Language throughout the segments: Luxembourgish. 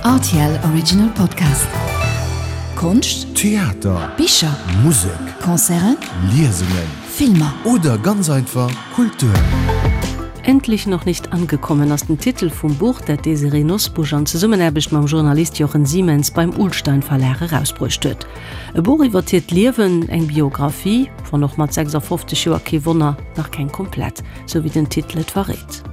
Rtl Original Podcast. Konscht, Theater, Bicher, Musek, Concerten, Liesungen, Filmer. Oder ganz einfach Kultur. Endlich noch nicht angekommen ass den Titel vum Buch, dat d'Désirée Nosbusch an Zesummenaarbecht mam Journalist Jochen Siemens beim Ullstein Verlag erausbruecht huet. E Buch iwwert hiert Liewen, eng Biographie, wann och mat 56 Joer, kee Wonner, nach keng komplett, sou wéi den Titel et verréit.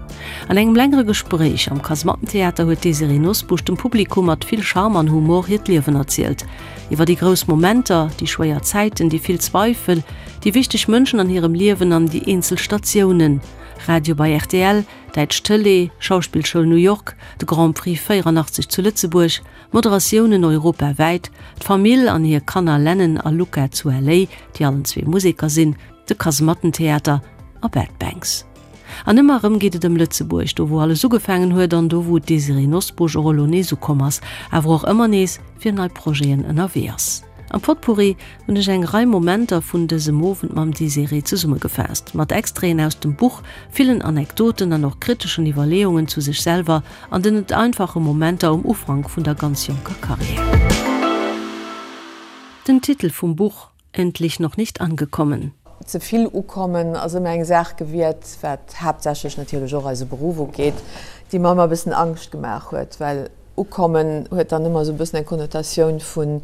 An engem längere Gespréich am Kasemattentheater huet d'Désirée Nosbusch dem Publikum mat vill Charme an Humor hiert Liewen erzielt. Iwwer déi grouss Momenter, déi schwéier Zäiten, déi vill Zweifel, déi wichteg Mënschen an hirem Liewen an déi eenzel Statiounen, Radio bei rtl, däitsch Tëlee, Schauspillschoul New York, de Grand Prix 84 zu Lëtzebuerg, Moderatiounen europawäit, d'Famill an hir Kanner Lennon a Luca zu LA, déi allen zwee Museker sinn, de Kasemattentheater a Bad Banks. An ëmmer erëm geet et ëm Lëtzebuerg, do wou alles ugefaangen huet an do wou d'Désirée Nosbusch och elo nees ukomm ass, awer och ëmmer nees fir nei Projeten ënnerwee ass. Am Potpourri hunn ech eng Rei Momenter vun dësem Owend mam Désirée zesummegefaasst, mat Extraiten aus dem Buch, villen Anekdoten an och kriteschen Iwwerleeungen zu sech selwer an den net einfache Momenter um Ufank vun der ganz jonker Karriär. Den Titel vum Buch, Endlich noch nicht angekommen. Ze vill ukommen ass ëmmer eng Saach gewiert, wat haaptsächlech natierlech och eise Beruff ugeet, déi mer ëmmer e bëssen Angscht gemaach huet, well Ukommen huet dann ëmmer esou e bëssen eng Konnotatioun vun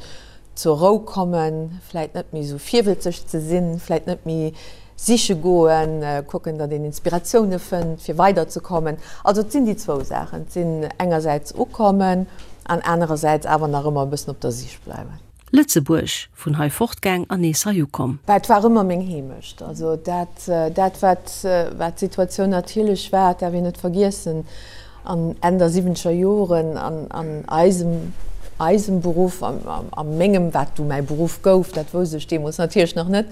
zur Rou kommen, vläit net méi esou virwëlzeg ze sinn, vläit net méi siche goen, kucken, datt een Inspiratioune fënnt, fir weiderzekommen. Also et sinn déi zwou Saachen, et sinn engersäits ukommen an anerersäits awer nach ëmmer e bëssen op der Sich bleiwen. Lëtzebuerg, vun hei fortgaang an nees hei ukomm. Bah, et war ëmmer meng Heemecht. Also dat, dat wat, wat d'Situatioun natierlech war, dat däerf een net vergiessen, an Enn der siwwenzeger Joren an, an eisem, eisem Beruff, a, a mengem, wat du mäi Beruff gouf, dat wousst ech deemools natierlech nach net,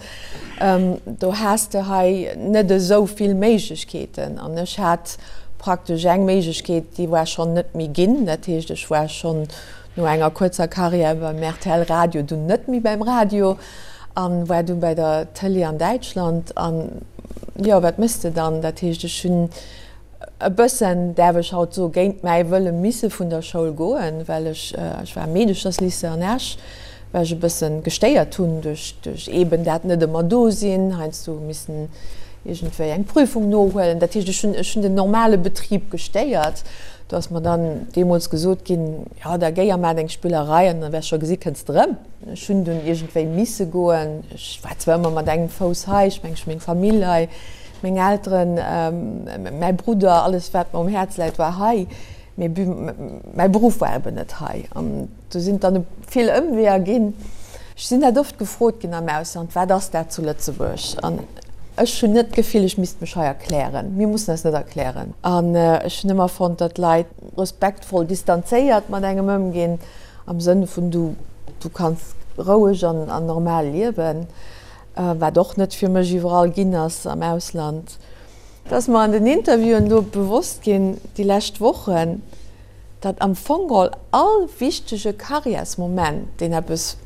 do has de hei net esou vill Méiglechkeeten. An ech hat praktesch eng Méiglechkeet, déi war schonn net méi ginn. Dat heescht, ech war schonn No enger kuerzer Karriär beim rtl Radio, dunn net méi beim Radio an war dunn bei der Tëlee an Däitschland. An jo, wat méchs de dann? Dat heescht, ech hunn e bëssen, däerf ech haut soen, géint mäi Wëlle misse vun der Schoul goen, well ech, ech war am Meedecherslycée an Esch, well ech e bëssen gestéiert hunn duerch, duerch eeben dat net ëmmer do sinn, heiansdo missen iergendwéi eng Prüfung nohuelen. Dat heescht, ech hunn, ech hunn den normale Betrib gestéiert. Do ass mer dann deemools gesot ginn, Jo, da géi a maach deng Spillerei an da wäers scho gesi kënns de rëm. Ech hunn dunn iergendwéi misse goen. Ech war zwar ëmmer mat engem Fouss hei, ech mengen, ech hu meng Famill hei, meng Elteren, mäi Brudder, alles wat mer um Häerz läit war hei, mee mäi Beruff war eben net hei. An do sinn et dann vill Ëmweeër ginn. Ech sinn dat oft gefrot ginn am Ausland, Wat ass dat zu Lëtzebuerg? An ech hunn net d'Gefill, ech misst mech hei erklären. Mir mussen eis net erklären. An ech hunn ëmmer fonnt, datt Leit respektvoll distanzéiert mat engem ëmginn, am Sënn vun du, du kanns roueg an normal liewen, wat och net fir mech iwwerall ginn ass am Ausland. Et ass mer an den Interviewen elo bewosst ginn, déi lescht Wochen, datt am Fong geholl all wichtege Karriärsmoment, deen eppes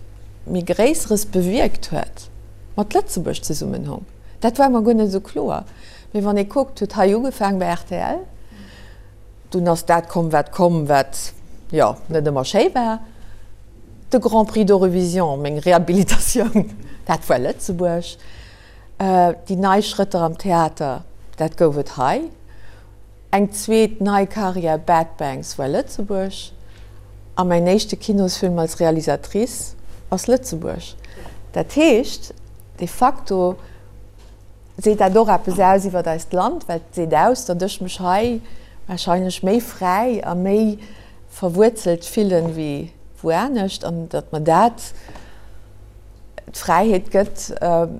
méi Gréisseres bewierkt huet, mat Lëtzebuerg zesummen hong. Dat war mer guer net esou kloer. Mee wann ee kuckt, huet hei ugefaang bei rtl, dunn ass dat komm, wat komm, wat, jo, net ëmmer schéi war, de Grand Prix d'Eurovision, meng Rehabilitatioun, dat war Lëtzebuerg. Déi nei Schrëtter am Theater, dat gouf et hei. Eng zweet nei Karriär, Bad Banks, war Lëtzebuerg. A mäin éischte Kinosfilm als Realisatrice ass Lëtzebuerg. Dat heescht, de facto seet dat och eppes aus iwwer eist Land, well et seet aus, datt ech mech hei warscheinlech méi fräi a méi verwuerzelt fillen wéi wou anescht an datt mer dat, d'Fräiheet gëtt,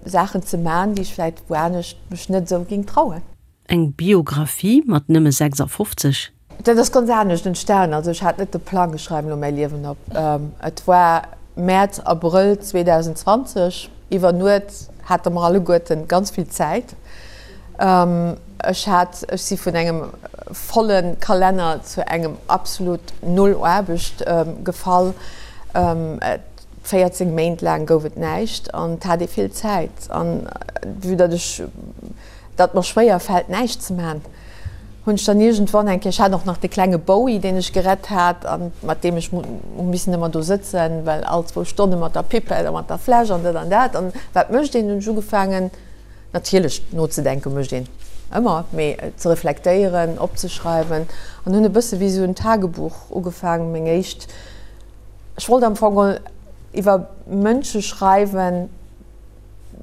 Saachen ze man, déi ech vläit wou anescht mech net esou géing trauen. Eng Biographie mat nëmme 56? Dat ass ganz anescht entstan. Also ech hat net de Plang, ech schreiwen elo mäi Liewen op. Et war Mäerz, Abrëll 2020, iwwer Nuet hate mer alleguerten ganz vill Zäit. Ech hat, ech si vun engem volle Kalenner zu engem absolut Null Aarbecht gefall. 14 Méint laang gouf et näischt an et hat ee vill Zäit. An vue datt ech, datt mer schwéier fält näischt ze man, Hunn ech dann iergendwann eng Kéier, ech hat och nach de klenge Bowie, deen ech gerett hat a mat deem ech hu missen ëmmer do sëtzen, well all zwou Stonne mat der Pipette a mat der Fläsch an dat an dat. An wat mécht een? Hunn ech ugefaangen, natierlech nozedenke mécht een ëmmer, mee ze reflektéieren, opzeschreiwen an hunn e bësse wéi esou en Tagebuch ugefaangen, meng éischt, ech wollt am Fong iwwer Mënsche schreiwen,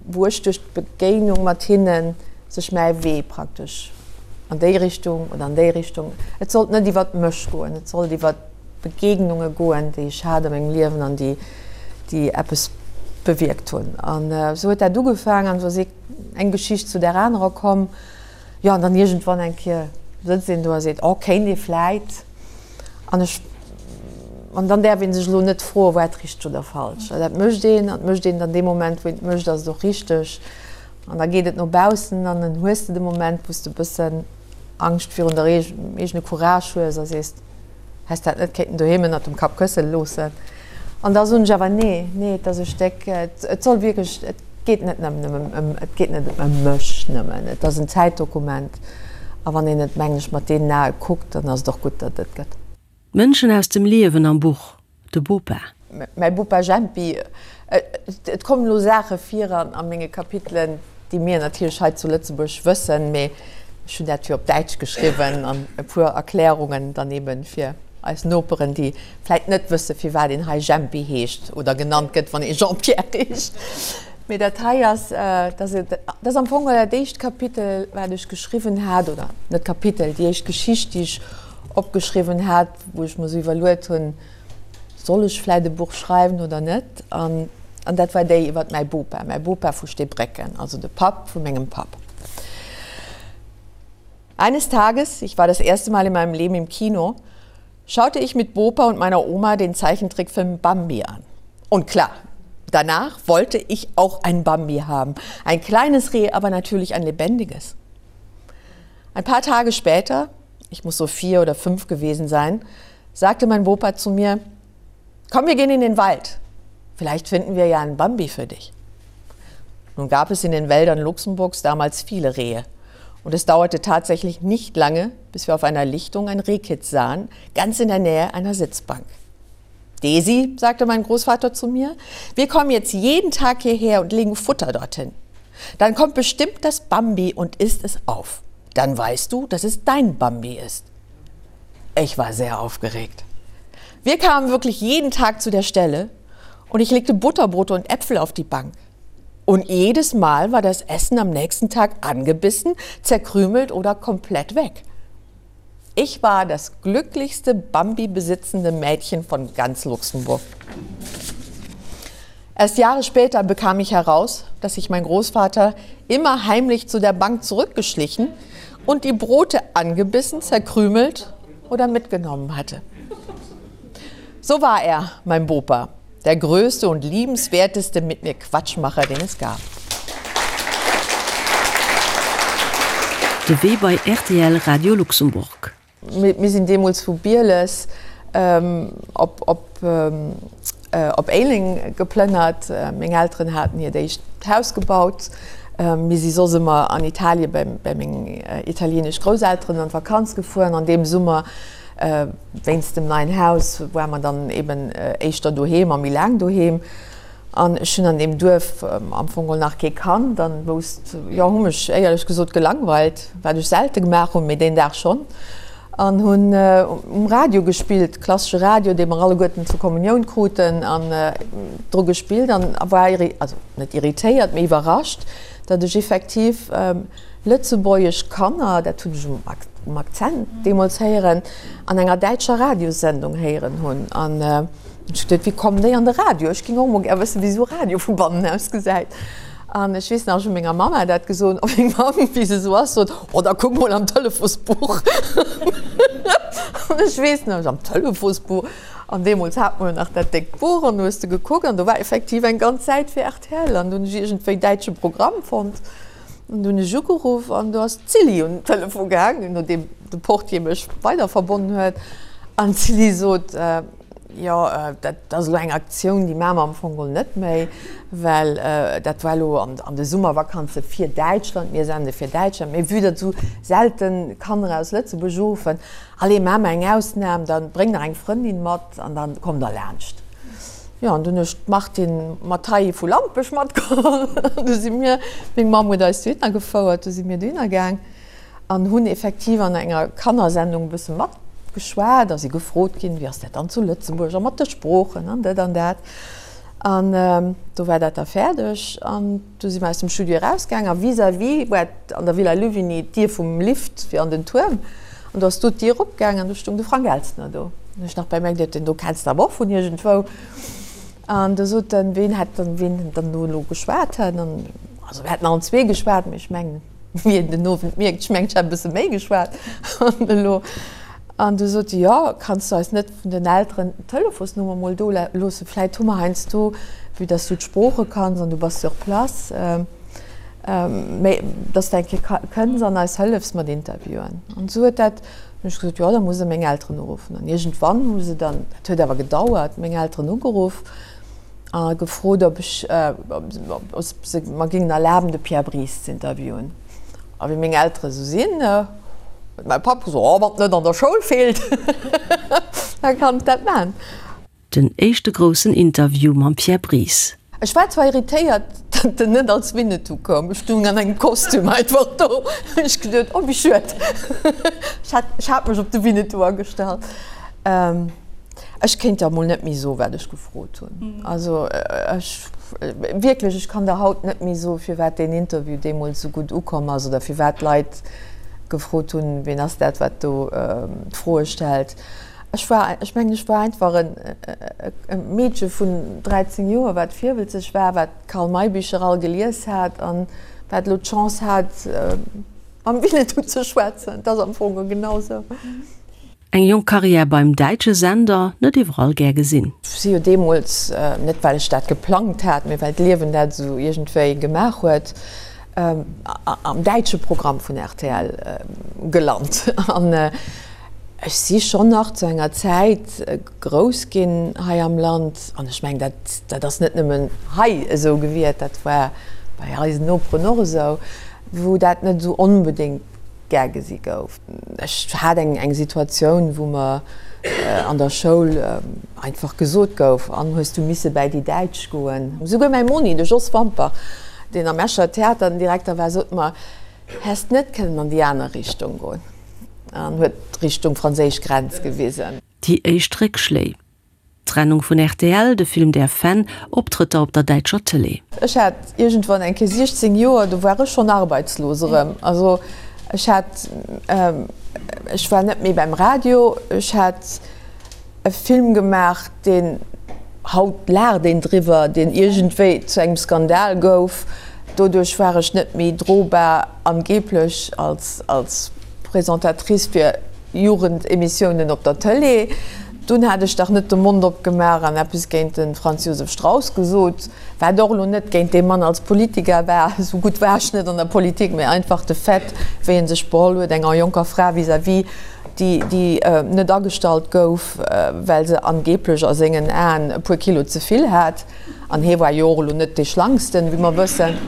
wou ech duerch d'Begéinung mat hinne sech mäi Wee praktesch an déi Richtung oder an déi Richtung, et sollt net iwwert mech goen, et sollt iwwert Begegnunge goen, déi ech hat a mengem Liewen an déi, déi eppes bewierkt hunn. An esou huet dat ugefaangen an esou ass eng Geschicht zu där anerer komm. Jo, an dann iergendwann eng Kéier sëtzt een do a seet, oh, kéint ee vläit. An ech, an dann däerf ee sech elo net froen, war et richteg oder falsch. Well dat mécht een, an et mécht een dann dee Moment, wou een et mécht, ass et och richteg. An da geet et no baussen an dann hues de de Moment, wou s de e bëssen Angscht virun der eegene Courage hues a sees, häss dat net kéinten doheem ënnert dem Kappkësse loossen. An da soen ech awer, nee, nee, et ass e Stéck, et soll wierklech, et geet net nëmmen ëm, et geet net ëm mech nëmmen, et ass en Zäitdokument. A wann een et, mengen ech, mat deenen Ae kuckt, dann ass et och gutt, datt et gëtt. D'Mënschen aus dem Liewen am Buch, De Bopa. Mäi Bopa Jempi, Et kommen elo Saache vir a menge Kapitelen, déi mir natierlech hei zu Lëtzebuerg wëssen, mee ech hunn dat jo op Däitsch geschriwwen an e puer Erklärungen dann eebe fir eis Noperen, déi vläit net wësse firwat een hei Jempi heescht oder genannt gëtt, wann ee Jean-Pierre heescht. Mee dat hei ass, dat ass am Fong dat éischt Kapitel, wat ech geschriwwen hat, oder net Kapitel, déi éischt Geschicht, déi ech opgeschriwwen hat, wou ech mer esou iwwerluet hunn, Soll ech vläit e Buch schreiwen oder net? An dat war déi iwwer mäi Bopa, mäi Bopa vu Steebrécken, also de Papp vu mengem Papp. Eines Tages, ich war das erste Mal in meinem Leben im Kino, schaute ich mit Bopa und meiner Oma den Zeichentrickfilm Bambi an. Und klar, danach wollte ich auch ein Bambi haben. Ein kleines Reh, aber natürlich ein lebendiges. Ein paar Tage später, ich muss so vier oder fünf gewesen sein, sagte mein Bopa zu mir: „Komm, wir gehen in den Wald. Vielleicht finden wir ja einen Bambi für dich. Nun gab es in den Wäldern Luxemburgs damals viele Rehe. Und es dauerte tatsächlich nicht lange, bis wir auf einer Lichtung ein Rehkitz sahen, ganz in der Nähe einer Sitzbank. Desi, sagte mein Großvater zu mir, wir kommen jetzt jeden Tag hierher und legen Futter dorthin. Dann kommt bestimmt das Bambi und isst es auf. Dann weißt du, dass es dein Bambi ist. Ich war sehr aufgeregt. Wir kamen wirklich jeden Tag zu der Stelle und ich legte Butterbrote und Äpfel auf die Bank. Und jedes Mal war das Essen am nächsten Tag angebissen, zerkrümelt oder komplett weg. Ich war das glücklichste Bambi besitzende Mädchen von ganz Luxemburg. Erst Jahre später bekam ich heraus, dass sich mein Großvater immer heimlich zu der Bank zurückgeschlichen und die Brote angebissen, zerkrümelt oder mitgenommen hatte. So war er, mein Bopa, der größte und liebenswerteste mit mir Quatschmacher, den es gab. De Wee bei rtl Radio Luxembourg. Mir sinn deemools vu Bieles op Éileng geplënnert. Meng Elteren haten hiert éischt Haus gebaut. Mir si soss ëmmer an Italie bei meng italieenesch Grousselteren an d'Vakanz gefuer. An deem Summer, wéinst dem neien Haus, ware mer dann eben éischter doheem a méi laang doheem. An ech hunn an deem Duerf am Fong geholl nach kee kannt an wousst, jo, hu mech éierlech gesot gelangweilt, wat ech selte gemaach hunn, mee deen Dag schonn, an hunn um Radio gespillt, klassesche Radio, dee mer alleguerten zur Kommunioun kruten, an dru gespillt an war, also net irritéiert, mee iwwerrascht, datt ech effektiv lëtzebuergesch Kanner, dat hunn ech um Akzent deemools héieren, an enger däitscher Radiossendung héieren hunn. An Ech geduet, wéi kommen déi an de Radio? Ech géing och mol gär wëssen, wéi esou Radio vu bannen aus gesäit. An ech weess nach, ech hu menger Mamma dat gesot, a meng Mamm, wéi se esou ass, sot, Oh, da kuck mol am Telefonsbuch. An ech weess nach, ech, am Telefonsbuch? An deemools hat mer jo nach dat déckt Buch, an du hues de gekuckt, an do war effektiv eng ganz Säit fir rtl. An du hunn ech iergendwéi däitsche Programm fonnt. An du hunn ech ugeruff, an do ass d'Silly un den Telefon gaangen, nodeem de Portier mech weiderverbonnen huet. An d'Silly sot. Jo, dat ass elo eng Aktioun, déi maache mer am Fong geholl net méi, well dat war elo an de Summervakanze fir Däitschland, mir sende fir Däitschland, mee vue datt esou selte Kanner aus Lëtzebuerg uruffen, allez, maache mer eng Ausnam, da bréng nach eng Frëndin mat an da kommt der laanscht. Jo, an dunn hu ech d'Martine Mathay vu Lampech matgeholl an du si mir, meng Mamm huet eis dohinner gefouert, du si mir dohinner gaang. An hunn effektiv an enger Kannersendung e bësse matgeschwat a si gefrot ginn, wéi ass dat dann zu Lëtzebuerg a mat de Sproochen an dat an dat. An do war dat da fäerdeg an du si mer aus dem Studio erausgaang a vis-à-vis war an der Villa Louvigny d'Dier vum Lift fir an den Tuerm an do ass do d'Dier opgaang an do stoung de Frank Elstner do. An hu ech nach bei mir geduet, deen do kenns de awer och vun iergendwou. An do sot en, ween hätt dann, ween dann do elo geschwat hätt an also mir hätten allen zwee geschwat, mee ech mengen, Wéi een den Owend mierkt, ech mengen, ech hätt e bësse méi geschwat an elo. An du sot se, jo, kanns du eis net vun den Elteren d'Telefonsnummer mol do loossen, vläit hu mer heiansdo, vue dass du d'Sprooche kanns an du bass sur place, méi, dass de eng Kéier kënns an eis hëllefs mat Interviewen. An esou huet dat, hunn ech gesot, jo, da muss e meng Elteren uruffen. An iergendwann hu se dann, dat huet awer gedauert, meng Elteren ugeruff. A gefrot, ob ech, ob se mer géingen erlaben, de Pierre Bries z'interviewen. A wéi meng Eltere sou sinn, huet mäi Papp gesot, Oh, wann et net an der Schoul feelt, da kann et dat maachen. Den éischte groussen Interview mam Pierre Bries. Ech war zwar irritéiert, datt en net als Winnetou koum. Ech stoung an engem Kostüm einfach do. Hunn ech geduet, oh wéi schued. Ech hat, ech hat mech op de Winnetou agestallt. Ech kéint der emol net méi soen, wat ech gefrot hunn. Also ech, wierklech, ech kann der haut net méi soen, firwat deen Interview deemools esou gutt ukomm ass oder firwat d'Leit gefrot hunn, wien ass dat, wat do d'Froe stellt. Ech war, ech mengen, ech war einfach e Meedche vun 13 Joer, wat virwëlzeg war, wat d'Karl May Bicher all gelies hat an wat elo d'Chance hat, mam Winnetou ze schwätzen. Et ass am Fong genau esou. Eng jonk Karriär beim däitsche Sender, net iwwerall gär gesinn. Si jo deemools, net well ech dat geplangt hat, mee well d'Liewen dat esou iergendwéi gemaach huet, am däitsche Programm vun rtl gelant. An ech si schonn nach zu enger Zäit grouss ginn hei am Land, an ech mengen, dat, dat ass net nëmmen hei esou gewiert, dat war bei eisen Noperen och esou, wou dat net esou onbedéngt gär gesi gouf. Ech hat eng eng Situatioun, wou mer an der Schoul einfach gesot gouf, An hues du misse bäi déi Däitsch goen? Souguer mäi Monni, de Jos Wampach, deen am Escher Theater den Direkter war, sot mer, Häss net kënnen an déi aner Richtung goen? An huet Richtung franséisch Grenz gewisen. Déi éischt Réckschléi. D'Trennung vun rtl, de Film Der Fan, Optrëtter op der däitscher Tëlee. Ech hat iergendwann eng Kéier 16 Joer, do war ech schonn arbeitslos erëm. Also ech hat, ech war net méi beim Radio, ech hat e Film gemaach, deen, haut laacht een driwwer, deen iergendwéi zu engem Skandal gouf. Doduerch war ech net méi drobar angeblech als, als Présentatrice fir Jugendemissiounen op der Tëlee. Dunn hat ech dach net de Mond opgemaach an eppes géint de Franz Josef Strauss gesot, wat och elo net géint dee Mann als Politiker war, esou gutt war ech net an der Politik, mä einfach de Fait, wéi en sech beholl huet enger jonker Fra vis-à-vis, déi, déi net agestallt gouf, well se angeblech a sengen Aen e puer Kilo ze vill hat. An hie war jo och elo net dee Schlanksten, wéi mer wëssen.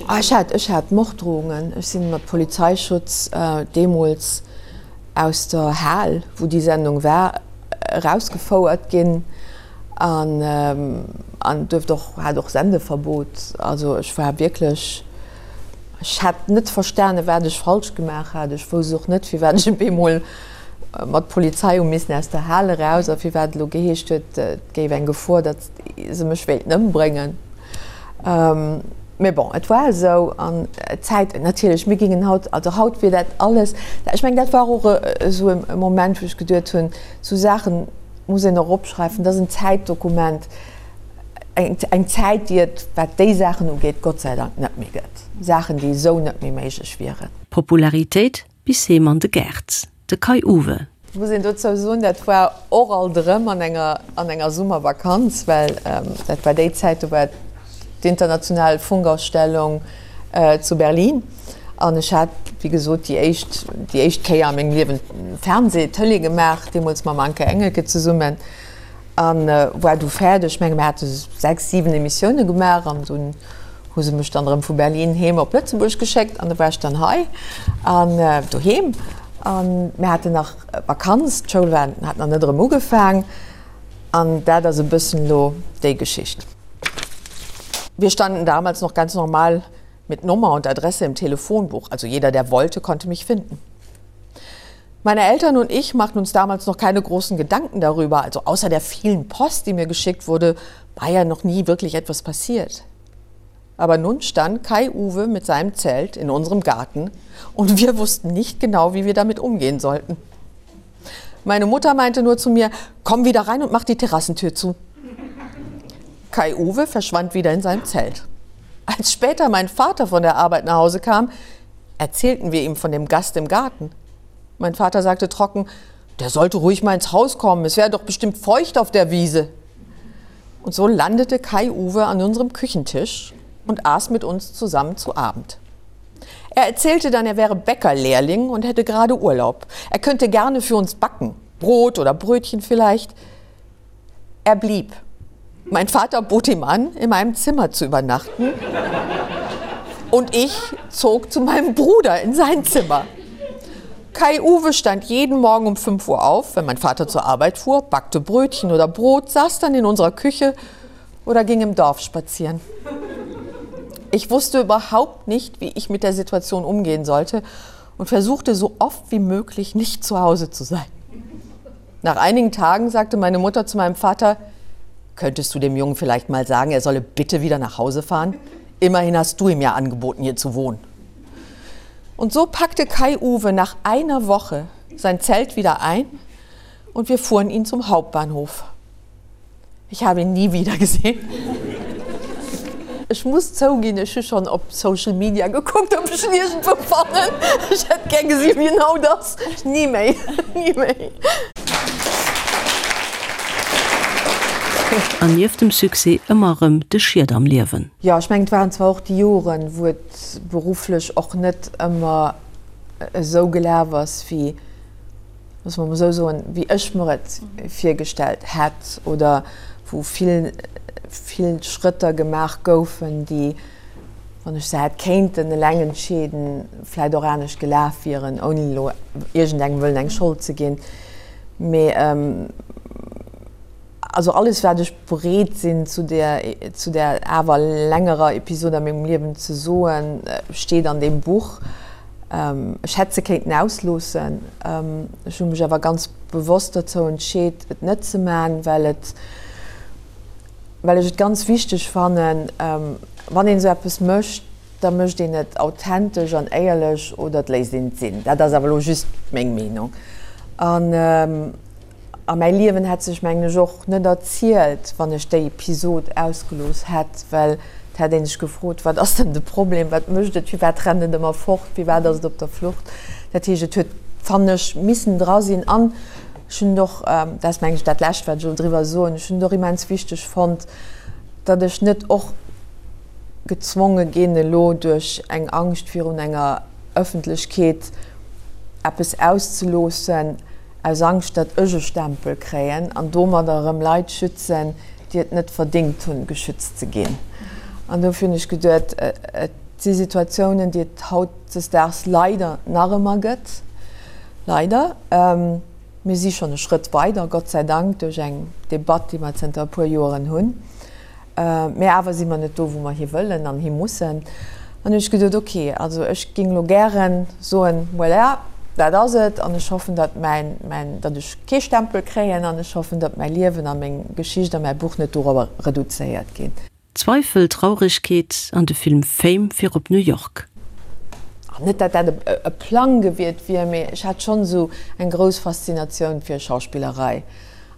Ech hat, ech hat Morddrohungen. Ech si mat Polizeischutz deemools aus der Hal, wou déi Sendung war, erausgefouert ginn an an duerft och, hat och Sendeverbot. Also ech war wierklech, ech hat net verstane wat ech falsch gemaach hat. Ech wousst och net, firwat ech op eemol mat Polizei hu missen aus der Hal eraus a firwat et elo geheescht huet, et géif eng Gefor, datt se mech wéilten ëmbréngen. Mee bon, et war esou an d'Zäit, natierlech, mir gingen haut, also haut wier dat alles, ech mengen, dat war och esou e Moment, wou ech geduet hunn, esou Saache muss een och opschreiwen, dat ass en Zäitdokument, eng Zäit, déi et, wat déi Saachen ugeet, Gott sei Dank net méi gëtt, Saachen, déi esou net méi méiglech wieren. Popularitéit bis heem an de Gaart, de Kai-Uwe. Muss een dozou soen, dat war och alt erëm an enger an enger Summervakanz, well dat war déi Zäit, do war d'international Funkausstellung zu Berlin an ech hat, wéi gesot, déi éischt déi éischt Kéier a mengem Liewen Fernseh, Tëlee gemaach, deemools mam Anke Engelke zesummen. An war du fäerdeg. Ech menge mir hate 6, 7 Emissioune gemaach an dunn hu se mech dann erëm vu Berlin heem op Lëtzebuerg geschéckt an da war ech dann hei an doheem. An mir haten nach Vakanz, d'Schoul war hat nach net erëm ugefaang an dat ass e bëssen elo déi Geschicht. Wir standen damals noch ganz normal mit Nummer und Adresse im Telefonbuch, also jeder, der wollte, konnte mich finden. Meine Eltern und ich machten uns damals noch keine großen Gedanken darüber, also außer der vielen Post, die mir geschickt wurde, war ja noch nie wirklich etwas passiert. Aber nun stand Kai Uwe mit seinem Zelt in unserem Garten und wir wussten nicht genau, wie wir damit umgehen sollten. Meine Mutter meinte nur zu mir: „Komm wieder rein und mach die Terrassentür zu. Kai Uwe verschwand wieder in seinem Zelt. Als später mein Vater von der Arbeit nach Hause kam, erzählten wir ihm von dem Gast im Garten. Mein Vater sagte trocken: „Der sollte ruhig mal ins Haus kommen, es wäre doch bestimmt feucht auf der Wiese. Und so landete Kai Uwe an unserem Küchentisch und aß mit uns zusammen zu Abend. Er erzählte dann, er wäre Bäckerlehrling und hätte gerade Urlaub. Er könnte gerne für uns backen, Brot oder Brötchen vielleicht. Er blieb. Mein Vater bot ihm an, in meinem Zimmer zu übernachten. Und ich zog zu meinem Bruder in sein Zimmer. Kai Uwe stand jeden Morgen um 5 Uhr auf, wenn mein Vater zur Arbeit fuhr, backte Brötchen oder Brot, saß dann in unserer Küche oder ging im Dorf spazieren. Ich wusste überhaupt nicht, wie ich mit der Situation umgehen sollte und versuchte so oft wie möglich nicht zu Hause zu sein. Nach einigen Tagen sagte meine Mutter zu meinem Vater: „Könntest du dem Jungen vielleicht mal sagen, er solle bitte wieder nach Hause fahren? Immerhin hast du ihm ja angeboten, hier zu wohnen. Und so packte Kai Uwe nach einer Woche sein Zelt wieder ein und wir fuhren ihn zum Hauptbahnhof. Ich habe ihn nie wieder gesehen. Ech muss zouginn, ech hu schonn op Social Media gekuckt, ob ech en iergendwou fannen. Ech hätt gär gesi wien haut ass. Ni méi, ni méi. An nieft dem Succès ëmmer erëm de Schied am Liewen. Jo, ech mengen, et waren zwar och déi Joren, wou et berufflech och net ëmmer esou gelaf ass, wéi loosse mer emol esou soen, wéi ech mer et virgestellt hätt oder wou vill, vill Schrëtter gemaach goufen, déi, wann ech se hätt kéinten eleng entscheeden, vläicht och anescht gelaf wieren, ouni elo iergendengem wëllen eng Schold ze ginn. Mee also alles, wat ech bereet sinn zu där, zu där awer längerer Episod a mengem Liewen ze soen, steet an deem Buch. Ech hätt se kéinten ausloossen. Ech hu mech awer ganz bewosst dozou entscheet, et net ze man, well et, well ech et ganz wichteg fannen, wann een esou eppes mécht, da mécht een et authentesch an éierlech oder et léisst een et sinn. Dat ass awer elo just meng Meenung. An A mäi Liewen hätt sech, mengen ech, och net erzielt, wann ech déi Episod ausgelooss hätt, well et hätt ee sech gefrot, Wat ass denn de Problem? Wat mécht et? Firwat rennt et ëmmer fort? Firwat ass et op der Flucht? Dat heescht, et huet, fannen ech, missen dra sinn. An ech hunn et och, dat ass, mengen ech, dat Lescht, wat ech elo driwwer soen, ech hunn et och immens wichteg fonnt, datt ech net och gezwonge ginn, elo duerch eng Angscht virun enger Ëffentlechkeet eppes auszeloossen, aus Angscht, datt ech e Stempel kréien an domadder erëm Leit schützen, déi et net verdéngt hunn, geschützt ze ginn. An dofir hunn ech geduet, et si Situatiounen, déi et hautdesdaags leider nach ëmmer gëtt, leider. Mir si schonn e Schrëtt weider, Gott sei Dank, duerch eng Debatt, déi mer zënter e puer Joeren hunn. Mä awer si mer net do, wou mer hi wëllen an hi mussen. An hunn ech geduet, ok, also ech géing elo gären soen, voilà, dat ass et an ech hoffen, datt mäin, mäin, datt ech kee Stempel kréien an ech hoffen, datt mäi Liewen a meng Geschicht a mäi Buch net dorobber reduzéiert ginn. Zweifel, Traurigkeet an de Film Fame fir op New York. An net, datt dat e Plang gewiert wier, mee ech hat schonn esou eng grouss Faszinatioun fir Schauspillerei.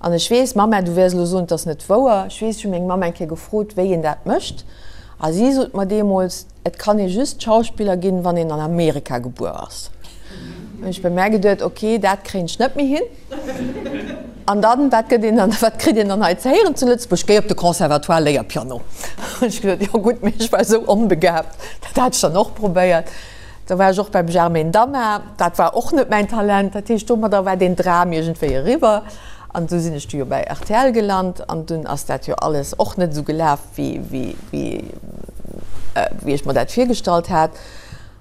An ech weess, Mamma, du wäers elo soen, 't ass net wouer, ech weess, ech hu meng Mamm eng Kéier gefrot, wéi een dat mécht, a si sot mer deemools, et kann ee just Schauspiller ginn, wann een an Amerika gebuer ass. Hunn ech bei mär geduet, ok, dat kréien ech net méi hin. An dann, wat gëtt een dann, wat kritt een dann hei ze héieren zu Lëtzebuerg? Géi op de Conservatoire, léier Piano. Hunn ech geduet, jo gutt, mee ech war esou onbegabt, dat hat ech dann och probéiert. Da war ech och beim Germaine Damar, dat war och net mäin Talent. Dat heescht, domadder war deen Dram iergendwéi eriwwer. An du sinn ech du jo bei rtl gelant an dunn ass dat jo alles och net esou gelaf, wéi, wéi, wéi, wéi ech mer dat virgestallt hat.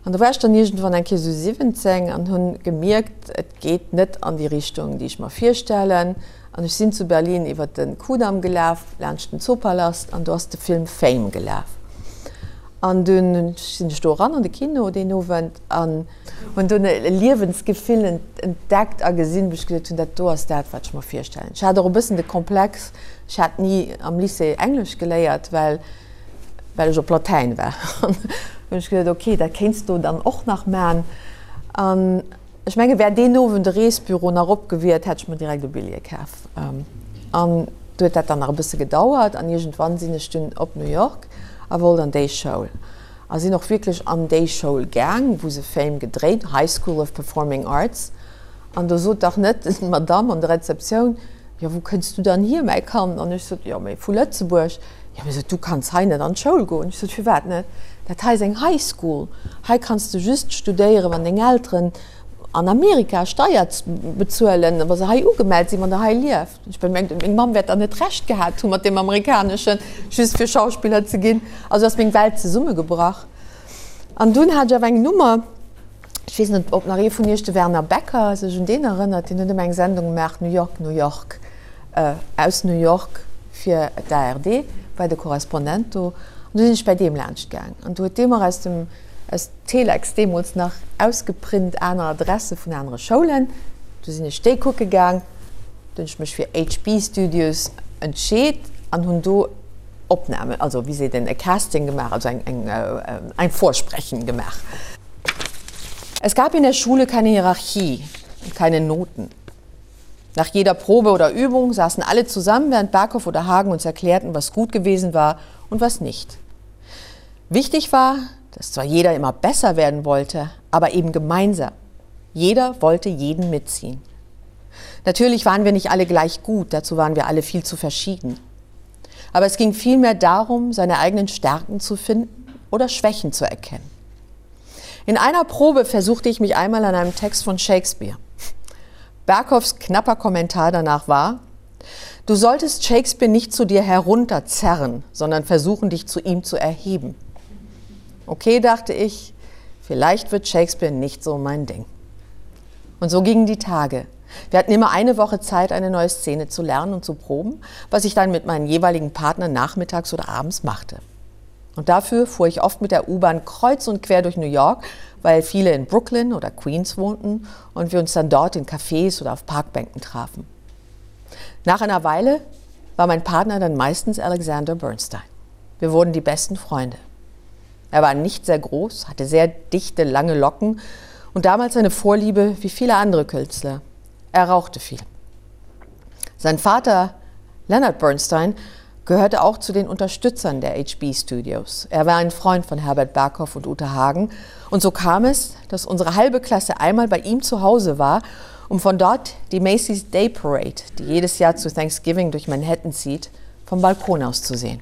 An do war ech dann iergendwann eng Kéier esou 17 an hunn gemierkt, et geet net an déi Richtung, déi ech mer virstellen. An ech sinn zu Berlin iwwer de Kudamm gelaf, laanscht den Zoopalast, an do ass de Film Fame gelaf. An dunn sinn ech do eran an de Kino deen Owend an hunn dunn e Liewensgefill entdeckt a gesinn, wou ech gesot hunn, dat do ass dat, wat ech mer virstellen. Ech hat och e bëssen de Komplex, ech hat ni am Lycée Englesch geléiert, well well ech op Latäin war. An hunn ech gesot, okay, dat kéints du dann och nach man. An ech menge wär deen Owend de Reesbüro nach op gewiert, hätt ech mer direkt e Billjee kaf. An du huet dat dann nach e bësse gedauert an iergendwann sinn ech dunn op New York a wollt an déi Schoul. A sinn och wierklech an déi Schoul gaang, wou se Fame gedréit, High School of Performing Arts. An do sot dach net d'Madame an der Rezeptioun, Jo, wou kënns du dann hier, mäi Kand? An ech sot, Jo, mee vu Lëtzebuerg. Jo, mee sot, du kanns hei net an d'Schoul goen. Ech sot, Firwat net? Dat hei ass eng High School. Hei kanns du just studéieren, wann deng Elteren an Amerika Steier bezuelen, wa se hei ugemellt sinn, wann der hei lieft. Ech well mengt, meng Mamm wäert dann net Recht gehat hu mat deem Amerikaneschen, just fir Schauspiller ze ginn. Also ass meng Welt zesummegebrach. An dunn hat ech awer eng Nummer, ech weess net, ob nach ee vun iech de Werner Becker sech un deen erënnert, deen huet ëmmer eng Sendung gemaach, New York, New York, aus New York fir d'ARD, war de Korrespondent do. An du sinn ech bäi deem laanscht gaang an du huet dee mer aus dem, aus Telex deemools nach ausgeprint, aner Adresse vun anere Schoulen. Du sinn ech déi kucke gaang. Du hunn ech mech fir HB Studios entscheet an hunn do Opnamen, also wéi seet een, e Casting gemaach, also eng, eng, ein Vorsprechen gemaach. Es gab in der Schule keine Hierarchie und keine Noten. Nach jeder Probe oder Übung saßen alle zusammen, während Barkow oder Hagen uns erklärten, was gut gewesen war und was nicht. Wichtig war, dass zwar jeder immer besser werden wollte, aber eben gemeinsam. Jeder wollte jeden mitziehen. Natürlich waren wir nicht alle gleich gut, dazu waren wir alle viel zu verschieden. Aber es ging vielmehr darum, seine eigenen Stärken zu finden oder Schwächen zu erkennen. In einer Probe versuchte ich mich einmal an einem Text von Shakespeare. Berghoffs knapper Kommentar danach war: Du solltest Shakespeare nicht zu dir herunterzerren, sondern versuchen, dich zu ihm zu erheben. Okay, dachte ich, vielleicht wird Shakespeare nicht so mein Ding. Und so gingen die Tage. Wir hatten immer eine Woche Zeit, eine neue Szene zu lernen und zu proben, was ich dann mit meinen jeweiligen Partnern nachmittags oder abends machte. Und dafür fuhr ich oft mit der U-Bahn kreuz und quer durch New York, weil viele in Brooklyn oder Queens wohnten und wir uns dann dort in Cafés oder auf Parkbänken trafen. Nach einer Weile war mein Partner dann meistens Alexander Bernstein. Wir wurden die besten Freunde. Er war nicht sehr groß, hatte sehr dichte, lange Locken und damals eine Vorliebe wie viele andere Künstler. Er rauchte viel. Sein Vater, Leonard Bernstein, gehörte auch zu den Unterstützern der HB Studios. Er war ein Freund von Herbert Berghoff und Ute Hagen. Und so kam es, dass unsere halbe Klasse einmal bei ihm zu Hause war, um von dort die Macy's Day Parade, die jedes Jahr zu Thanksgiving durch Manhattan zieht, vom Balkon aus zu sehen.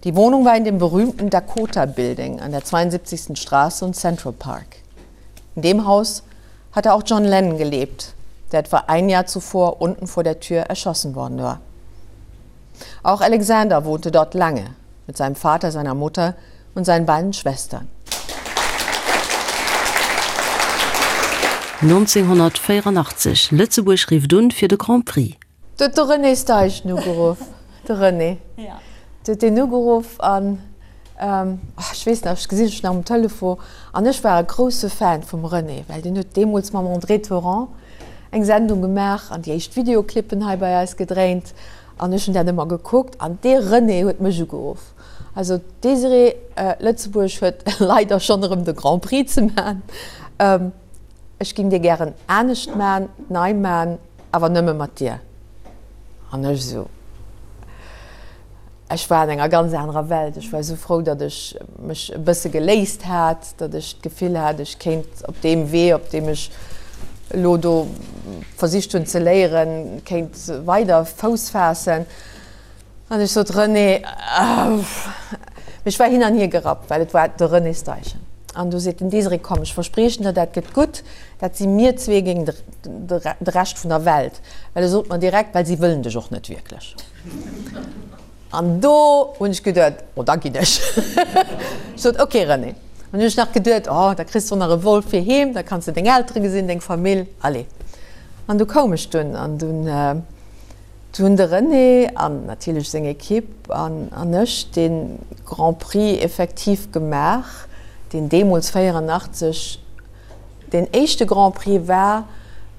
Die Wohnung war in dem berühmten Dakota Building an der 72. Straße und Central Park. In dem Haus hatte auch John Lennon gelebt, der etwa ein Jahr zuvor unten vor der Tür erschossen worden war. Auch Alexander wohnte dort lange mit seinem Vater, seiner Mutter und seinen beiden Schwestern. 1984, Lëtzebuerg rifft un fir de Grand Prix. Do huet de René Steichen ugeruff, de René, do huet deen ugeruff an, ech weess nach, ech gesinn ech nach um Telefon, an ech war e grousse Fan vum René, well deen huet deemools mam André Thorand eng Sendung gemaach an déi éischt Videoclippen hei bei eis gedréint an ech hunn dat ëmmer gekuckt an dee René huet mech ugeruff. Also d'Désirée, Lëtzebuerg huet leider schonn erëm de Grand Prix ze man. Ech ging dir gären anescht man, nei man, awer nëmme mat dir. An ech esou, ech war an enger ganz anerer Welt. Ech war esou frou, datt ech mech e bësse geléist hat, datt ech d'Gefill hat, ech kéint op deem Wee, op deem ech elo do versicht hunn ze léieren, kéint weider Fouss faassen. An ech sot, René, ech war hin an hier gerappt, well et war de René Steichen. An du seet den Desiré, Komm, ech verspriechen der, dat gëtt gutt, dat si mir zwee géint de Rescht vun der Welt. Well e sot mer direkt, Well si wëllen dech och net wierklech. An do hunn ech geduet, Oh, da ginn ech. Ech sot, Ok, René. An hunn ech nach geduet, Oh, da kriss de och nach e Vol fir heem, da kanns de deng Eltere gesinn, deng Famill, allez. An du koum ech dunn an dunn hunn de René an natierlech seng Ekipp an an ech dee Grand Prix effektiv gemaach, deen deemools 84 deen éischte Grand Prix war,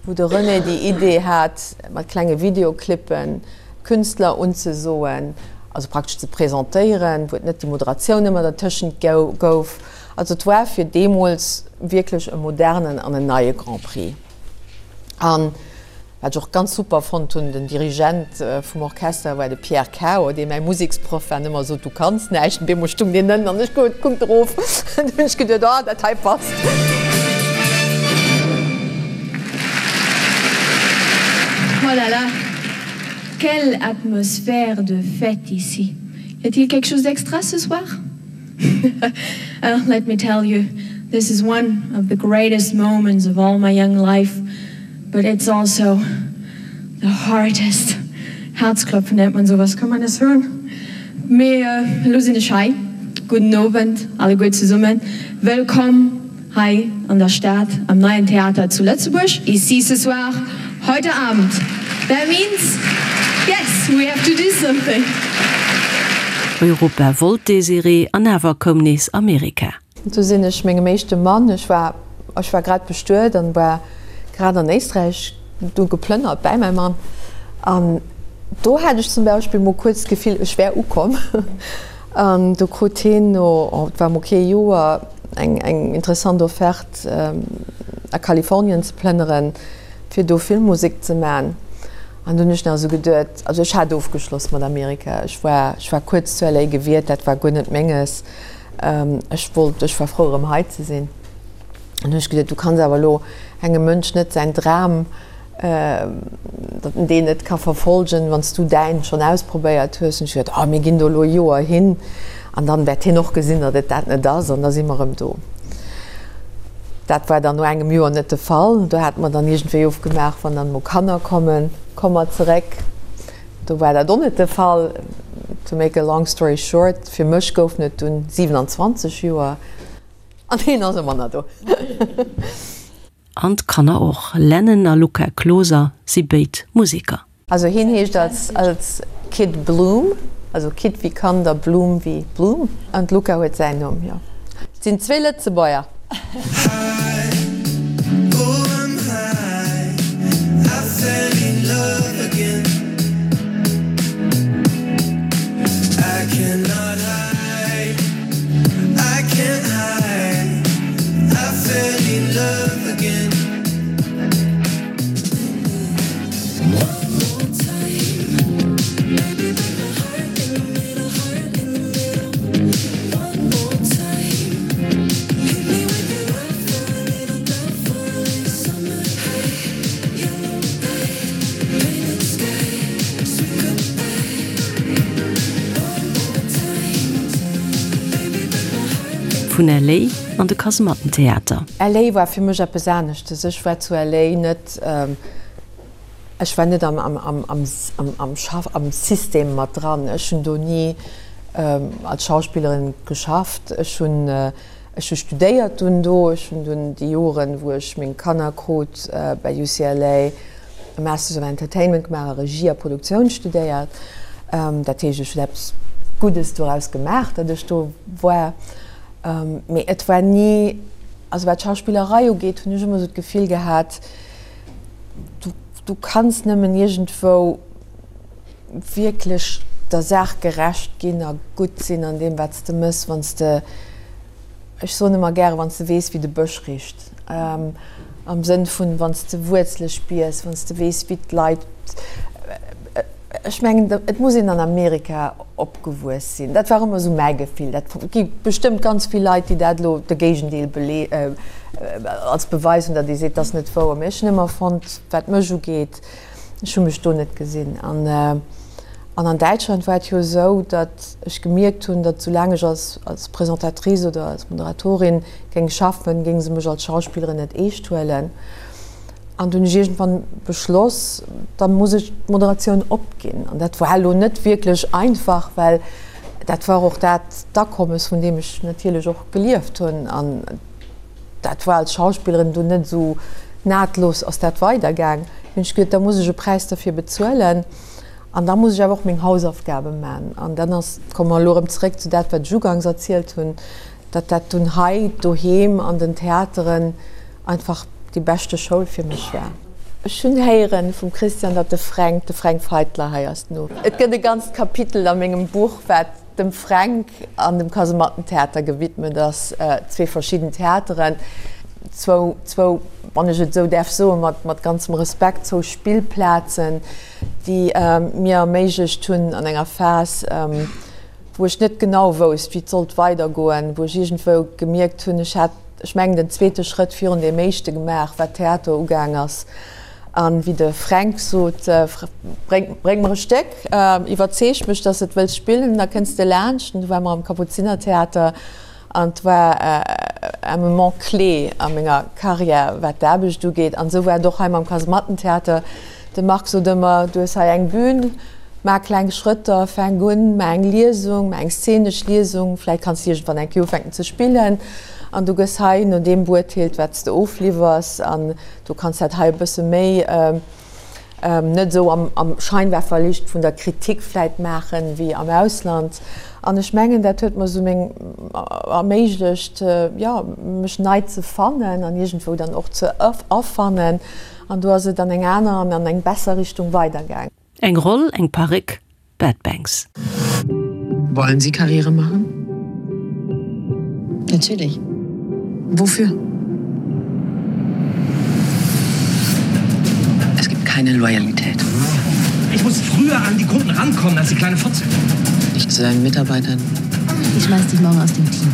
wou de René déi Idee hat, mat klenge Videoclippen d'Künstler unzesoen, also praktesch ze presentéieren, wou et net déi Moderatioun ëmmer dertëschent gouf. Also et war fir deemools wierklech e modernen an en neie Grand Prix. An wat ech och ganz super fonnt hunn, den Dirigent vum Orchester war de Pierre Cao, dee mäi Museksproff war an ëmmer sot, du kanns näischt. An deemools stung deen ënnen an ech kuckt erof. An du hunn ech geduet, oh, dat hei passt. Oh là là, quelle atmosphère de fête ici. Y a-t-il quelque chose d'extra ce soir? Well, let me tell you, this is one of the greatest moments of all my young life, but it's also the hardest. Herzklopfen nennt man sowas, kann man das hören? Mee elo sinn ech hei. Gudden Owend alleguer zesummen. Wëllkomm hei an der Stad, am Neien Theater zu Lëtzebuerg. Ici ce soir, heute Abend. That means, yes, we have to do something. Europa wollt d'Désirée, an awer koum nees Amerika. Du sinn ech mengem éischte Mann, ech war, ech war grad bestuet an war grad an Éisträich du geplënnert bäi mäi Mann an do hat ech zum Beispill mol kuerz d'Gefill, ech wär ukomm. An du krut hien no, oh, et war mol kee Joer, eng, eng interessant Offerte a Kalifornien ze plënneren, fir do Filmmusek ze man. An du hunn ech nach esou geduet, also ech hat ofgeschloss mat Amerika, ech war, ech war kuerz zu LA gewiert, dat war guer net menges, ech wollt, ech war frou erëm hei ze sinn. An hunn ech geduet, du kanns awer elo engem Mënsch net säin Dram, datt en deen net ka verfolgen, wann s du däin schonn ausprobéiert hues. Hunn ech geduet, oh mir ginn do elo e Joer hin an dann wäert hien och gesinn, datt et dat net ass an da si mer erëm do. Dat war dann no engem Joer net de Fall. Do hate mer dann iergendwéi ofgemaach, wann dann emol Kanner kommen, komme mer zeréck. Do war dat och net de Fall. To make a long story short, fir mech goufen et dunn 27 Joer an hien ass ëmmer nach do. An d'Kanner och. Lennon a Luca Kloser si béid Museker. Also hien heescht als als Kid Bloom, also Kid wéi Kand a Bloom wéi Blumm. An d'Luca huet säin Numm, jo. Et sinn zwee Lëtzebuerger. Vun LA an de Kasemattentheater. LA war fir mech eppes aneschtes. Ech war zu LA net, ech war net am, am, am, am, am Schaff, am System mat dran. Ech hunn do ni als Schauspillerin geschafft. Ech hunn, ech hu studéiert dunn do. Ech hunn dunn déi Joren, wou ech meng Kanner krut, bei UCLA e Masters of Entertainment gemaach a Regie a Produktioun studéiert. Dat heescht, ech hunn eppes Guddes doraus gemaach, datt ech do war. Mee et war ni, also wat d'Schauspillerei ugeet, hunn ech ëmmer esou d'Gefill gehat, du, du kanns nëmmen iergendwou wierklech der Saach gerecht ginn a gutt sinn an deem, wat s de méchs, wann s de, Ech soen ëmmer gäre, wann s de weess, wéi de Bësch richt, am Sënn vun, wann s de Wuerzele spiers, wann s de weess, wéi d'Leit, ech mengen, et muss een an Amerika opgewuess sinn. Dat war ëmmer esou mäi Gefill. Dat gi bestëmmt ganz vill Leit, déi dat elo de Géigendeel als Beweis hunn, datt ee seet, dat ass net wouer. Mee ech hunn ëmmer fonnt, wat mech ugeet, ech hu mech do net gesinn. An. An an Däitschland war et jo esou, datt ech gemierkt hunn, datt soulaang ech als als Presentatrice oder als Moderatorin géing schaffen, géinge se mech als Schauspillerin net eescht huelen. An du hunn ech iergendwann beschloss, da muss ech d'Moderatioun opginn. An dat war elo net wierklech einfach, well dat war och dat d'Akommes, vun deem ech natierlech och gelieft hunn. An dat war als Schauspillerin dunn net esou nahtlos ass dat weidergaang. Hunn ech geduet, da muss ech e Präis derfir bezuelen an da muss ech awer och meng Hausaufgabe man. An dann ass, komme mer elo erëm zeréck zu dat, wat ech ugangs erzielt hunn, datt dat dunn hei doheem an den Theateren einfach déi beschte Schoul fir mech war. Ech hunn héieren vum Christian, datt de Fränk, de Fränk Feitler hei ass no. Et gëtt e ganzt Kapitel a mengem Buch, wat dem Fränk an dem Kasemattentheater gewidmet ass, zwee verschidden Theateren, zwou, zwou, wann ech et esou däerf soen, mat, mat ganzem Respekt, zwou Spillplazen, déi mir erméiglecht hunn an enger Phas, wou ech net genau wousst, wéi et sollt weidergoen, wou ech iergendwou gemierkt hunn, ech hat, ech mengen, den zweete Schrëtt virun deem éischte gemaach, wat Theater ugaang ass. A wéi de Fränk sot, Bréng, bréng mer e Stéck, iwwerzeeg mech, dass de et wëlls spillen, da kënns de laanscht. An du ware mer am Kapuzinertheater an et war un moment clé a menger Karriär, wat d'Aarbecht ugeet. An esou war et och hei mam Kasemattentheater. De Marc sot ëmmer, Du hues hei eng Bühn, maach kleng Schrëtter, fänk un, maach eng Liesung, maach eng szenesch Liesung, vläicht kanns de iergendwann eng Kéier ufänken ze spillen an du gëss hei no deem beurteelt, wat s de ofliwwers. An Du kanns dat hei e bësse méi net esou am Scheinwerferlicht vun der Kritik vläit maachen, wéi am Ausland. An ech mengen, dat huet mer esou meng erméiglecht, jo, mech nei ze fannen an iergendwou dann och ze erfannen. An do ass et an eng aner an an eng besser Richtung weidergaang. Eng Roll, eng Paréck, Bad Banks. Wollen Sie Karriere machen? Natürlich. Wofür? Es gibt keine Loyalität. Ich muss früher an die Kunden rankommen als die kleine Fotze. Nicht zu deinen Mitarbeitern. Ich schmeiß dich morgen aus dem Team.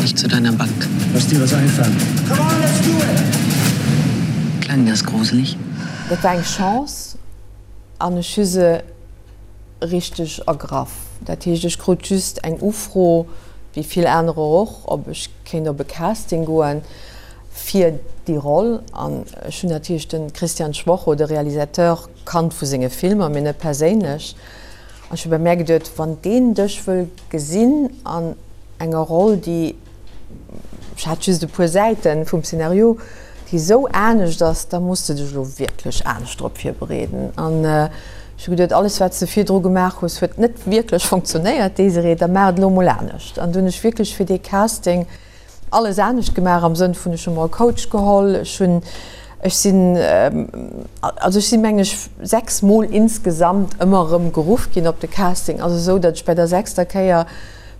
Nicht zu deiner Bank. Lass dir was einfallen. Come on, let's do it! Klang das gruselig? Dat war eng Chance an ech hu se richteg ergraff. Dat heescht, ech krut just eng Ufro, wéi vill anerer och, ob ech kéint op e Casting goen fir déi Roll. An ech hunn natierlech de Christian Schwocho, de Realisateur, kannt vu senge Filmer, mee net perséinlech. An ech hu bei mär geduet, wann deen dech wëll gesinn an enger Roll, déi ech hat just e puer Säite vum Szenario, déi esou anescht ass, da muss de dech elo wierklech anescht drop virbereeden. An ech hu geduet, alles wat s de virdru gemaach hues, huet net wierklech funktionéiert, Désirée, da maach et elo emol anescht. An du hunn ech wierklech fir dee Casting alles anescht gemaach, am Sënn vun, ech hu mer e Coach geholl, ech hunn, ech sinn, also ech sinn, mengen ech, 6 Mol insgesamt ëmmer erëm geruff ginn op de Casting, also esou, datt ech bei der sechster Kéier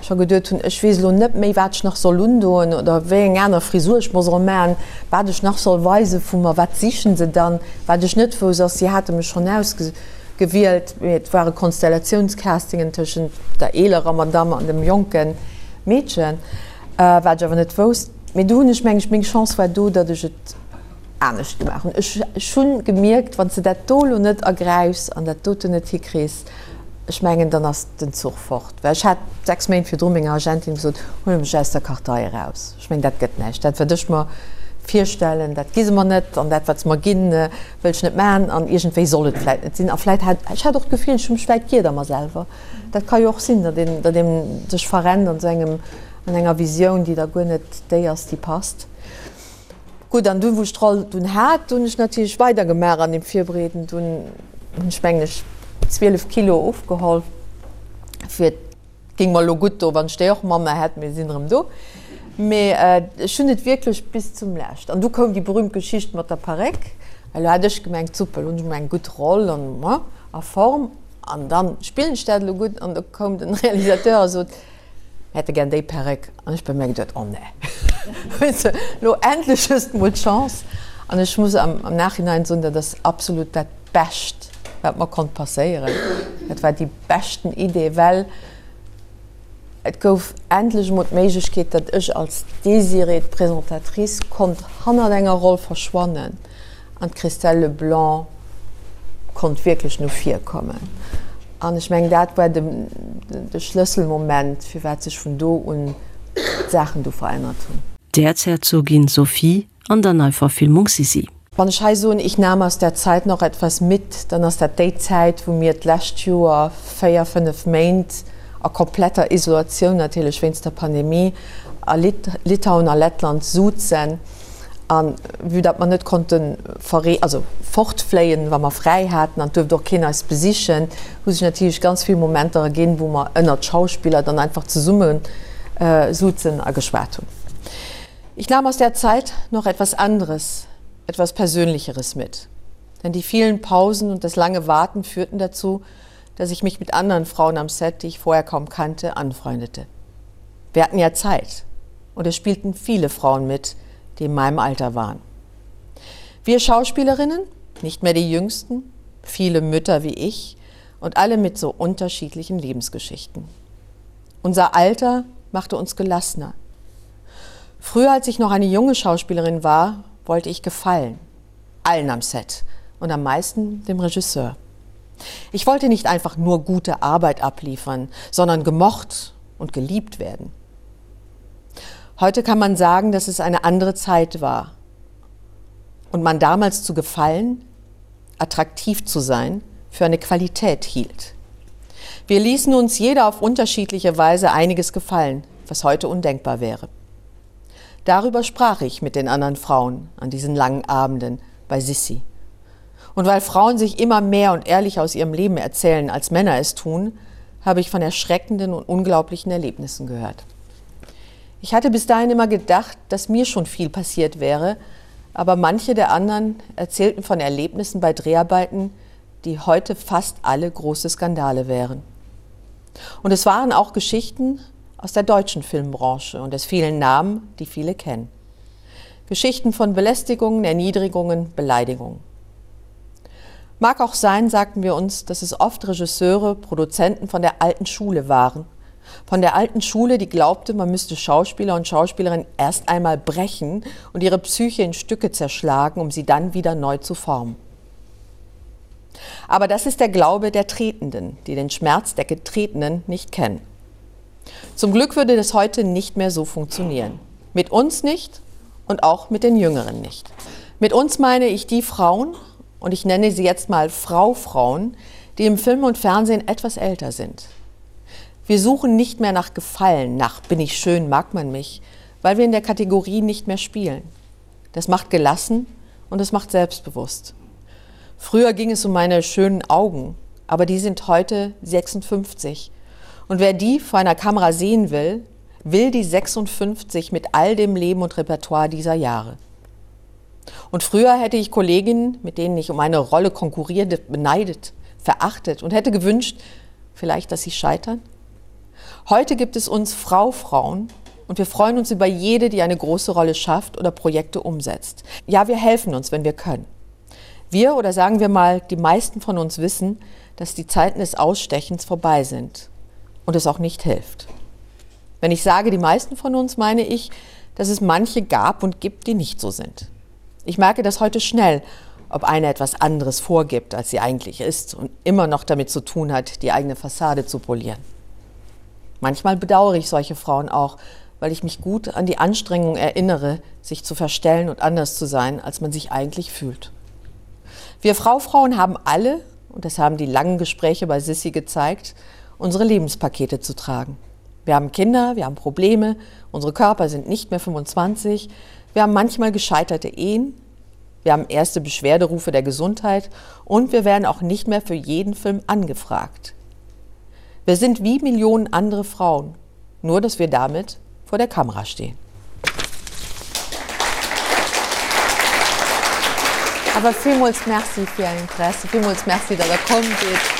scho geduet hunn, ech weess elo net méi, wat ech nach soll undoen oder wéi eng aner Frisur ech mer soll maachen, wat ech nach soll weise vu mer, wat sichen se dann. Wat ech net wousst ass, si hate mech schonn ausgewielt, mee et ware Konstellatiounscastingen tëschent der eelerer Madamm an dem jonke Meedchen, wat ech awer net wousst. Mee do hunn ech, meng ech, meng Chance war do, datt ech et anescht gemaach hunn. Ech hunn gemierkt, wann s de dat do elo net ergräifs an dat doten net hikriss, ech mengen, dann ass den Zuch fort. Well ech hat 6 Méint virdru menger Agentin gesot, huel mech aus der Kartei eraus. Ech mengen, dat gëtt näischt. Dat, wat ech mer virstellen, dat gi se mer net. An dat, wat se mer ginn, wëll ech net maachen. An iergendwéi soll et vläit net sinn. A vläit hat ech hat och d'Gefill, ech hu mech vläit giert a mer selwer. Dat ka jo och sinn, datt een, datt een sech verrennt an esou engem, an enger Visioun, déi da guer net déi ass, déi passt. Gutt, an dunn, wou ech d'Roll dunn hat, hunn ech natierlech weidergemaach an deem Virbereeden. Dunn hunn ech, mengen ech, 12 Kilo ofgeholl, fir, et géing mer elo gutt do, wann ech déi och manner hätt, mee sinn erëm do. Mee ech hunn et wierklech bis zum Lescht. An du koum déi berühmt Geschicht mat der Paréck. Elo hat ech gemengt, super, elo hunn ech emol eng gutt Roll an a Form an dann spillen ech dat elo gutt. An da koum den Realisateur a sot, Mir hätte gär déi Perréck. An ech bei mir geduet, Oh nee, weess de, lo endlech hues de mol d'Chance. An ech muss am Nachhinein soen, dat ass absolut dat Bescht, wat mer konnt passéieren. Dat war déi beschten Idee, well et gouf endlech emol d'Méiglechkeet, datt ech als Désirée, d'Présentatrice, konnt hannert enger Roll verschwannen an d'Christelle Leblanc konnt wierklech no vir kommen. An ech mengen, dat war de, de Schlësselmoment, firwat sech vun do un d'Saachen du verännert hunn. D'Äerzherzogin Sophie an der Neiverfilmung Sissi. Wann ech hei soen, ich nahm aus der Zeit noch etwas mit, dann ass dat déi Zäit, wou mir d'lescht Joer véier, fënnef Méint a kompletter Isolatioun natierlech wéinst der Pandemie a Litauen a Lettland souzen. A vue datt mer net konnte verree, also fortfléien, wa mer fräi haten, an et duerft och keen eis besichen, hu sech natierlech ganz vill Momenter erginn, wou mer ënnert Schauspiller dann einfach zesumme souzen a geschwat hunn. Ich nahm aus der Zeit noch etwas anderes, etwas Persönlicheres mit. Denn die vielen Pausen und das lange Warten führten dazu, dass ich mich mit anderen Frauen am Set, die ich vorher kaum kannte, anfreundete. Wir hatten ja Zeit und es spielten viele Frauen mit, die in meinem Alter waren. Wir Schauspielerinnen, nicht mehr die jüngsten, viele Mütter wie ich und alle mit so unterschiedlichen Lebensgeschichten. Unser Alter machte uns gelassener. Früher, als ich noch eine junge Schauspielerin war, wollte ich gefallen, allen am Set und am meisten dem Regisseur. Ich wollte nicht einfach nur gute Arbeit abliefern, sondern gemocht und geliebt werden. Heute kann man sagen, dass es eine andere Zeit war und man damals zu gefallen, attraktiv zu sein, für eine Qualität hielt. Wir ließen uns jeder auf unterschiedliche Weise einiges gefallen, was heute undenkbar wäre. Darüber sprach ich mit den anderen Frauen an diesen langen Abenden bei Sissi. Und weil Frauen sich immer mehr und ehrlich aus ihrem Leben erzählen, als Männer es tun, habe ich von erschreckenden und unglaublichen Erlebnissen gehört. Ich hatte bis dahin immer gedacht, dass mir schon viel passiert wäre, aber manche der anderen erzählten von Erlebnissen bei Dreharbeiten, die heute fast alle große Skandale wären. Und es waren auch Geschichten aus der deutschen Filmbranche und es vielen Namen, die viele kennen. Geschichten von Belästigungen, Erniedrigungen, Beleidigungen. Mag auch sein, sagten wir uns, dass es oft Regisseure, Produzenten von der alten Schule waren. Von der alten Schule, die glaubte, man müsste Schauspieler und Schauspielerinnen erst einmal brechen und ihre Psyche in Stücke zerschlagen, um sie dann wieder neu zu formen. Aber das ist der Glaube der Tretenden, die den Schmerz der Getretenen nicht kennen. Zum Glück würde das heute nicht mehr so funktionieren. Mit uns nicht und auch mit den Jüngeren nicht. Mit uns meine ich die Frauen, und ich nenne sie jetzt mal Fraufrauen, die im Film und Fernsehen etwas älter sind. Wir suchen nicht mehr nach Gefallen, nach bin ich schön, mag man mich, weil wir in der Kategorie nicht mehr spielen. Das macht gelassen und es macht selbstbewusst. Früher ging es um meine schönen Augen, aber die sind heute 56. Und wer die vor einer Kamera sehen will, will die 56 mit all dem Leben und Repertoire dieser Jahre. Und früher hätte ich Kolleginnen, mit denen ich um eine Rolle konkurrierte, beneidet, verachtet und hätte gewünscht, vielleicht, dass sie scheitern. Heute gibt es uns Fraufrauen und wir freuen uns über jede, die eine große Rolle schafft oder Projekte umsetzt. Ja, wir helfen uns, wenn wir können. Wir oder sagen wir mal, die meisten von uns wissen, dass die Zeiten des Ausstechens vorbei sind und es auch nicht hilft. Wenn ich sage, die meisten von uns, meine ich, dass es manche gab und gibt, die nicht so sind. Ich merke das heute schnell, ob eine etwas anderes vorgibt, als sie eigentlich ist und immer noch damit zu tun hat, die eigene Fassade zu polieren. Manchmal bedauere ich solche Frauen auch, weil ich mich gut an die Anstrengung erinnere, sich zu verstellen und anders zu sein, als man sich eigentlich fühlt. Wir Fraufrauen haben alle, und das haben die langen Gespräche bei Sissi gezeigt, unsere Lebenspakete zu tragen. Wir haben Kinder, wir haben Probleme, unsere Körper sind nicht mehr 25, wir haben manchmal gescheiterte Ehen, wir haben erste Beschwerderufe der Gesundheit und wir werden auch nicht mehr für jeden Film angefragt. Wir sind wie Millionen andere Frauen, nur dass wir damit vor der Kamera stehen. Awer villmools Merci fir Är Interesse, villmools Merci, datt Der komm sidd.